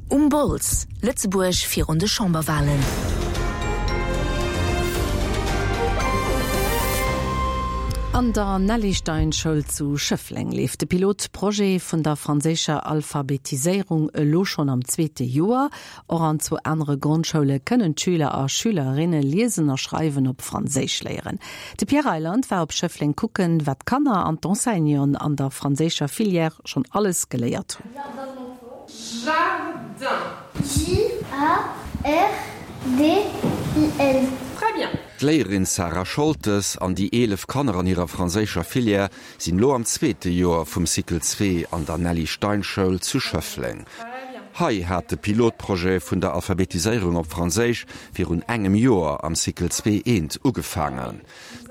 Um Bols, Lëtzebuerg virun de Chamberwalen. An der Nelly Stein Schoul zu Schëffleng leeft de Pilotprojet vun der franséischer Alphabetiséierung elo schonn am zweete Joer. Och an zwou anere Grondschoule kënnen d'Schüler a Schülerinne liesen a schreiwen op Franséisch léieren. De Pierre Reyland war op Schëffleng kucken, wat d'Kanner an d'Enseignanten an der franséischer Filière schonn alles geléiert hunn. Jardin. J-A-R-D-I-N. Très bien. D'Léierin Sarah Scholtes an déi 11 Kanner an hirer franséischer Filière sinn elo am zweete Joer vum Cycle zwee an der Nelly Stein Schoul zu Schëffleng. Hei hat de Pilotprojet vun der Alphabetiséierung op Franséisch virun engem Joer am Cycle zwee eent ugefaangen.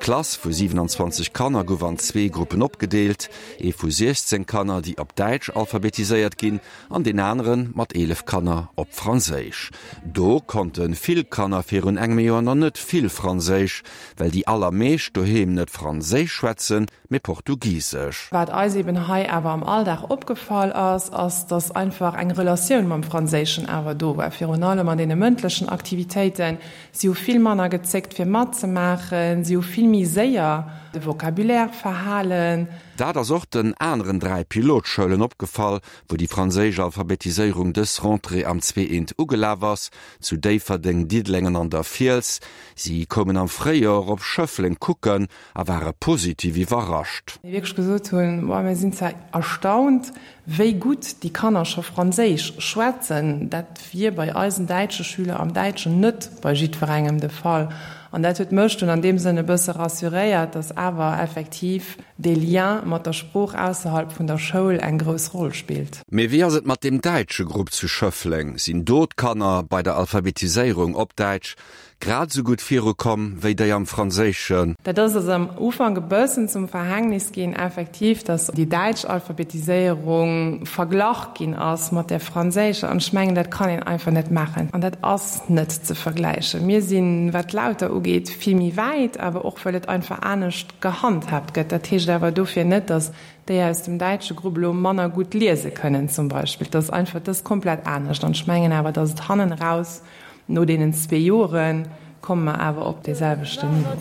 D'Klass vu 27 Kanner gouf an zwee Gruppen opgedeelt, ee vu 16 Kanner, déi op Däitsch alphabetiséiert ginn, an deen anere mat 11 Kanner op Franséisch. Do konnte vill Kanner virun engem Joer nach net vill Franséisch, well déi allermeescht doheem net Franséisch schwätzen, mee Portugisesch. Wat eis eben hei awer am Alldag opgefall ass, ass, dass einfach eng Relatioun mam Franséischen awer do war, virun allem an deene mëndlechen Aktivitéiten. Si hu vill manner gezéckt fir matzemaachen, si hu vill méi séier de Vocabulaire verhalen. Dat ass och den aneren 3 Pilotschoulen opgefall, wou déi franséisch Alphabetiséierung dës Rentrée am Zweeënt ugelaf ass, zu Déifferdeng, Diddeleng an an der Fiels. Si koumen am Fréijoer op Schëffleng kucken a ware positiv iwwerrascht. Déi wierklech gesot hunn, Boah, mir sinn zwar erstaunt, wéi gutt déi Kanner scho Franséisch schwätzen. Dat wier bei eisen däitsche Schüler am Däitschen net bei jiddwerengem de Fall. An dat huet mech dunn an deem Sënn e bësse rassuréiert, dass awer effektiv dee Lien mat der Sprooch ausserhalb vun der Schoul eng grouss Roll spillt. Mee wéi ass et mat deem däitsche Grupp zu Schëffleng? Sinn do d'Kanner bei der Alphabetiséierung op Däitsch Grad esou gutt virukomm wéi déi am Franséischen. Dat ass eis am Ufank e bëssen zum Verhängnis ginn, effektiv, datt déi däitsch Alphabetiséierung verglach ginn ass mat där franséischer. An ech mengen, dat kann een einfach net maachen an dat ass net ze vergläichen. Mir sinn, wat d'Lauter ugeet, vill méi wäit, awer och well et einfach anescht gehandhaabt gëtt. Dat heescht awer dofir net, datt déi aus dem däitsche Grupp elo manner gutt liese kënnen zum Beispill. Dat ass einfach, dat ass komplett anescht. An ech mengen awer, datt et hannen eraus No deenen zwee Jore komme mer awer op dee selwechten Niveau.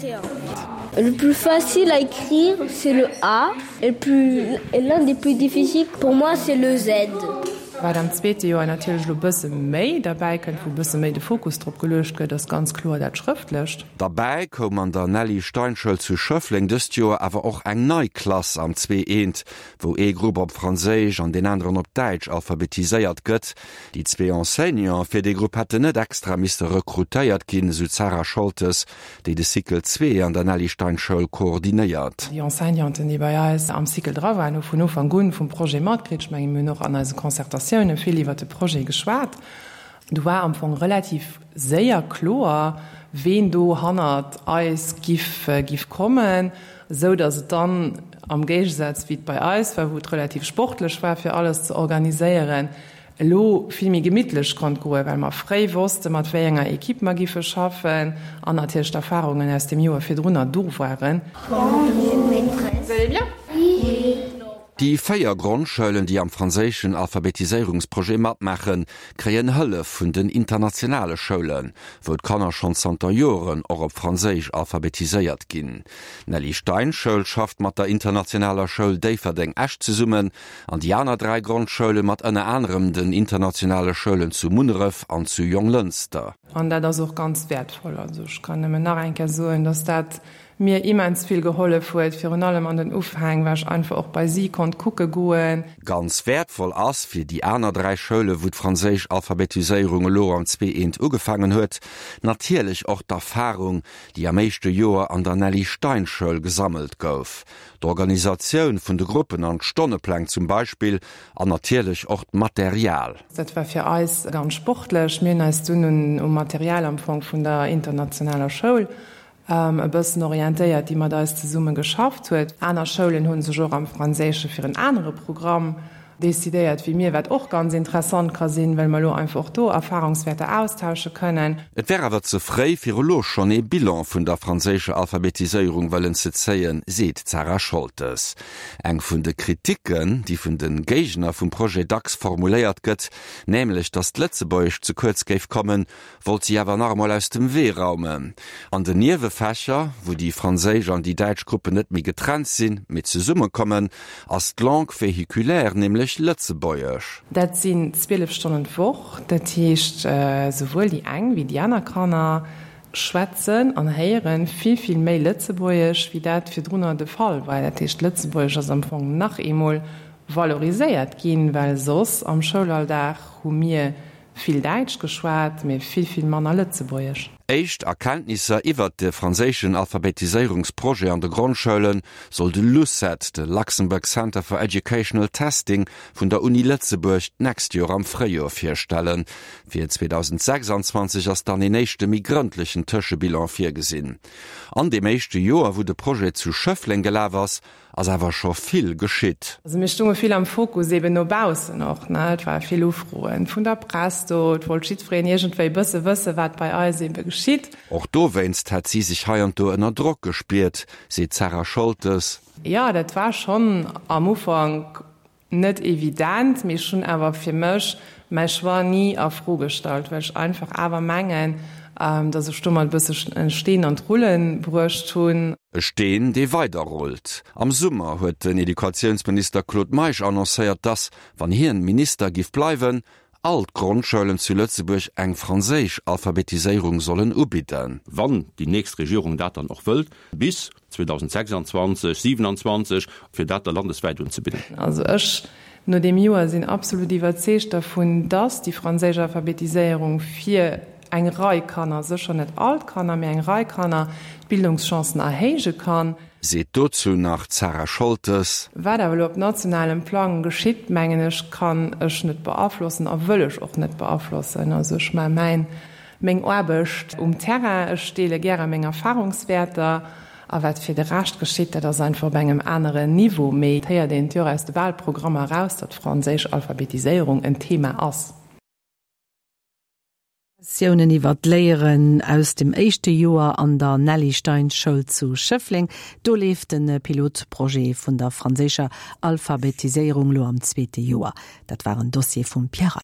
Le plus facile à écrire c'est le A et le plus et l'un des plus difficiles pour moi c'est le Z. Wat am zweete Joer natierlech elo bësse méi derbäi kënnt, wou bësse méi de Fokus drop geluecht gëtt, ass ganz kloer dat Schrëftlecht. Derbäi koum an der Nelly Stein Schoul zu Schëffleng dëst Joer awer och eng nei Klass am Zwee Eent, wou ee Grupp op Franséisch an deen aneren op Däitsch alphabetiséiert gëtt. Déi zwee Enseignanten fir dee Grupp hätten net extra misste rekrutéiert ginn, esou d'Sarah Scholtes, déi de Cycle zwee an der Nelly Stein Schoul koordinéiert. Déi Enseignanten, déi bei eis am Cycle dra waren, hu vun Ufank un vum Projet matkritt. Ech mengen, mir hunn och an eise Concertatioune vill iwwert de Projet geschwat. Do war am Fong relativ séier kloer, ween do hannert eis giff giff kommen, esou datt et dann, am Géigesaz wéi et bei eis war, wou et relativ sportlech war fir alles ze organiséieren, elo vill méi gemittlech konnt goen, well mer fréi wosste mat wéi enger Equipe mer giffe schaffen an natierlech d'Erfahrungen aus dem Joer virdrunner do waren. Bonjour maîtresse. Vous allez bien? Oui. Déi 4 Grondschoulen, déi am franséischen Alphabetiséierungsprojet matmaachen, kréien Hëllef vun den internationale Schoulen, wou d'Kanner schonn zanter Joren och op Franséisch alphabetiséiert ginn. D'Nelly Stein Schoul schafft mat der internationaler Schoul Déifferdeng-Esch zesummen, An déi aner 3 Grondschoule mat ënner anerem den internationale Schoulen zu Munneref an zu Jonglënster. An dat ass och ganz wäertvoll. Also ech kann nëmmen nach eng Kéier soen, dass dat mir immens vill gehollef huet, virun allem an den Ufäng, well ech einfach och bei si konnt kucke goen. Ganz wäertvoll ass fir déi aner 3 Schoule wou d'franséisch Alphabetiséierung elo am Zwee-Eent ugefaangen huet, natierlech och d'Erfarung, déi am éischte Joer an der Nelly Stein Schoul gesammelt gouf. D'Organisatioun vun de Gruppen an d'Stonnepläng zum Beispill an natierlech och d'Material. Dat war fir eis ganz sportlech. Mir hunn eis dunn un um Material am Fong vun der internationaler Schoul e bëssen orientéiert, déi mat eis zesumme geschafft huet. Aner Schoulen hu sech och am Franséische fir en anere Programm. decidéiert wéi mir, wat och ganz interessant ka sinn, well mer elo einfach och do Erfahrungswäerter austausche kënnen. Et wär awer ze fréi, fir elo schonn ee Bilan vun der franséischer Alphabetiséierung wëllen ze zéien, seet d'Sarah Scholtes. Eng vun de Kriticken, déi vun de Géigner vum Projet dacks formuléiert gëtt, nämlech datt d'Lëtzebuergescht ze kuerz géif kommen, wollt si awer nach emol aus dem Wee raumen. An den Niewefächer, wou déi franséisch an déi däitsch Gruppen net méi getrennt sinn, mee zesummekommen, ass d'Langue véhiculaire nämlech Lëtzebuergesch. Dat sinn 12 Stonnen d'Woch. Dat heescht, souwuel déi eng wéi déi aner Kanner schwätzen an héiere vill, vill méi Lëtzebuergesch, wéi dat virdrunner de Fall war. Dat heescht, Lëtzebuergesch ass am Fong nach eemol valoriséiert ginn, well soss am Schoulalldag hu mir Vill Däitsch geschwat, mee vill, vill manner Lëtzebuergesch. Éischt Erkenntnisser iwwert de franséischen Alphabetiséierungsprojet an de Grondschoule soll de LUCET, de Luxembourg Center for Educational Testing vun der Uni Lëtzebuerg, d'nächst Joer am Fréijoer virstellen. Fir 2026 ass dann een éischte méi grëndlechen Tëschebilan virgesinn. An deem éischte Joer, wou de Projet zu Schëffleng gelaf ass, Ass awer scho vill geschitt. Also mir stunge vill am Fokus, eben no baussen och, ne. Et ware vill Ufroen vun der Press do, et wollt jiddwereen iergendwéi e bësse wësse wat bei eis ebe geschitt. Och dowéinst hätt si sech hei an do ënner Drock gespiert, seet d'Sarah Scholtes. Jo, dat war schonn am Ufank Net evident, mee ech hunn awer fir mech mäi Choix ni a Fro gestallt, well ech einfach awer mengen, dass ech domat e bësse en Steen an d'Rulle bruecht hunn. E Steen, dee weider rullt. Am Summer huet den Educatiounsminister Claude Meisch annoncéiert, dass, wann hien Minister giff bleiwen, all d'Grondschoulen zu Lëtzebuerg eng franséisch Alphabetiséierung sollen ubidden. Wann déi nächst Regierung dat dann och wëllt, bis 2026, 27, fir dat da landeswäit unzebidden. Also ech, no deem Joer, sinn absolut iwwerzeegt dervun, dass déi franséisch Alphabetiséierung fir eng Rei Kanner, sécher net all d'Kanner, mee eng Rei Kanner, d'Bildungschancen erhéije kann. Seet dozou nach d'Sarah Scholtes. Wat awer elo op nationalem Plang geschitt, mengen ech, kann ech net beaflossen a wëll ech och net beaflossen. Also ech maache mäin, meng Aarbecht um Terrain, ech deele gäre meng Erfahrungswäerter a wat fir de Rescht geschitt, dat ass einfach op engem aneren Niveau. Mee et héiert een et jo och aus de Wahlprogrammer eraus, datt franséisch Alphabetiséierung en Thema ass. Tiounen iwwer d'Léieren aus dem éischte Joer an der Nelly Stein Schoul zu Schëffleng. Do leeft de Pilotprojet vun der franséischer Alphabetiséierung lo am zweete Joer. Dat war en Dossier vum Pierre.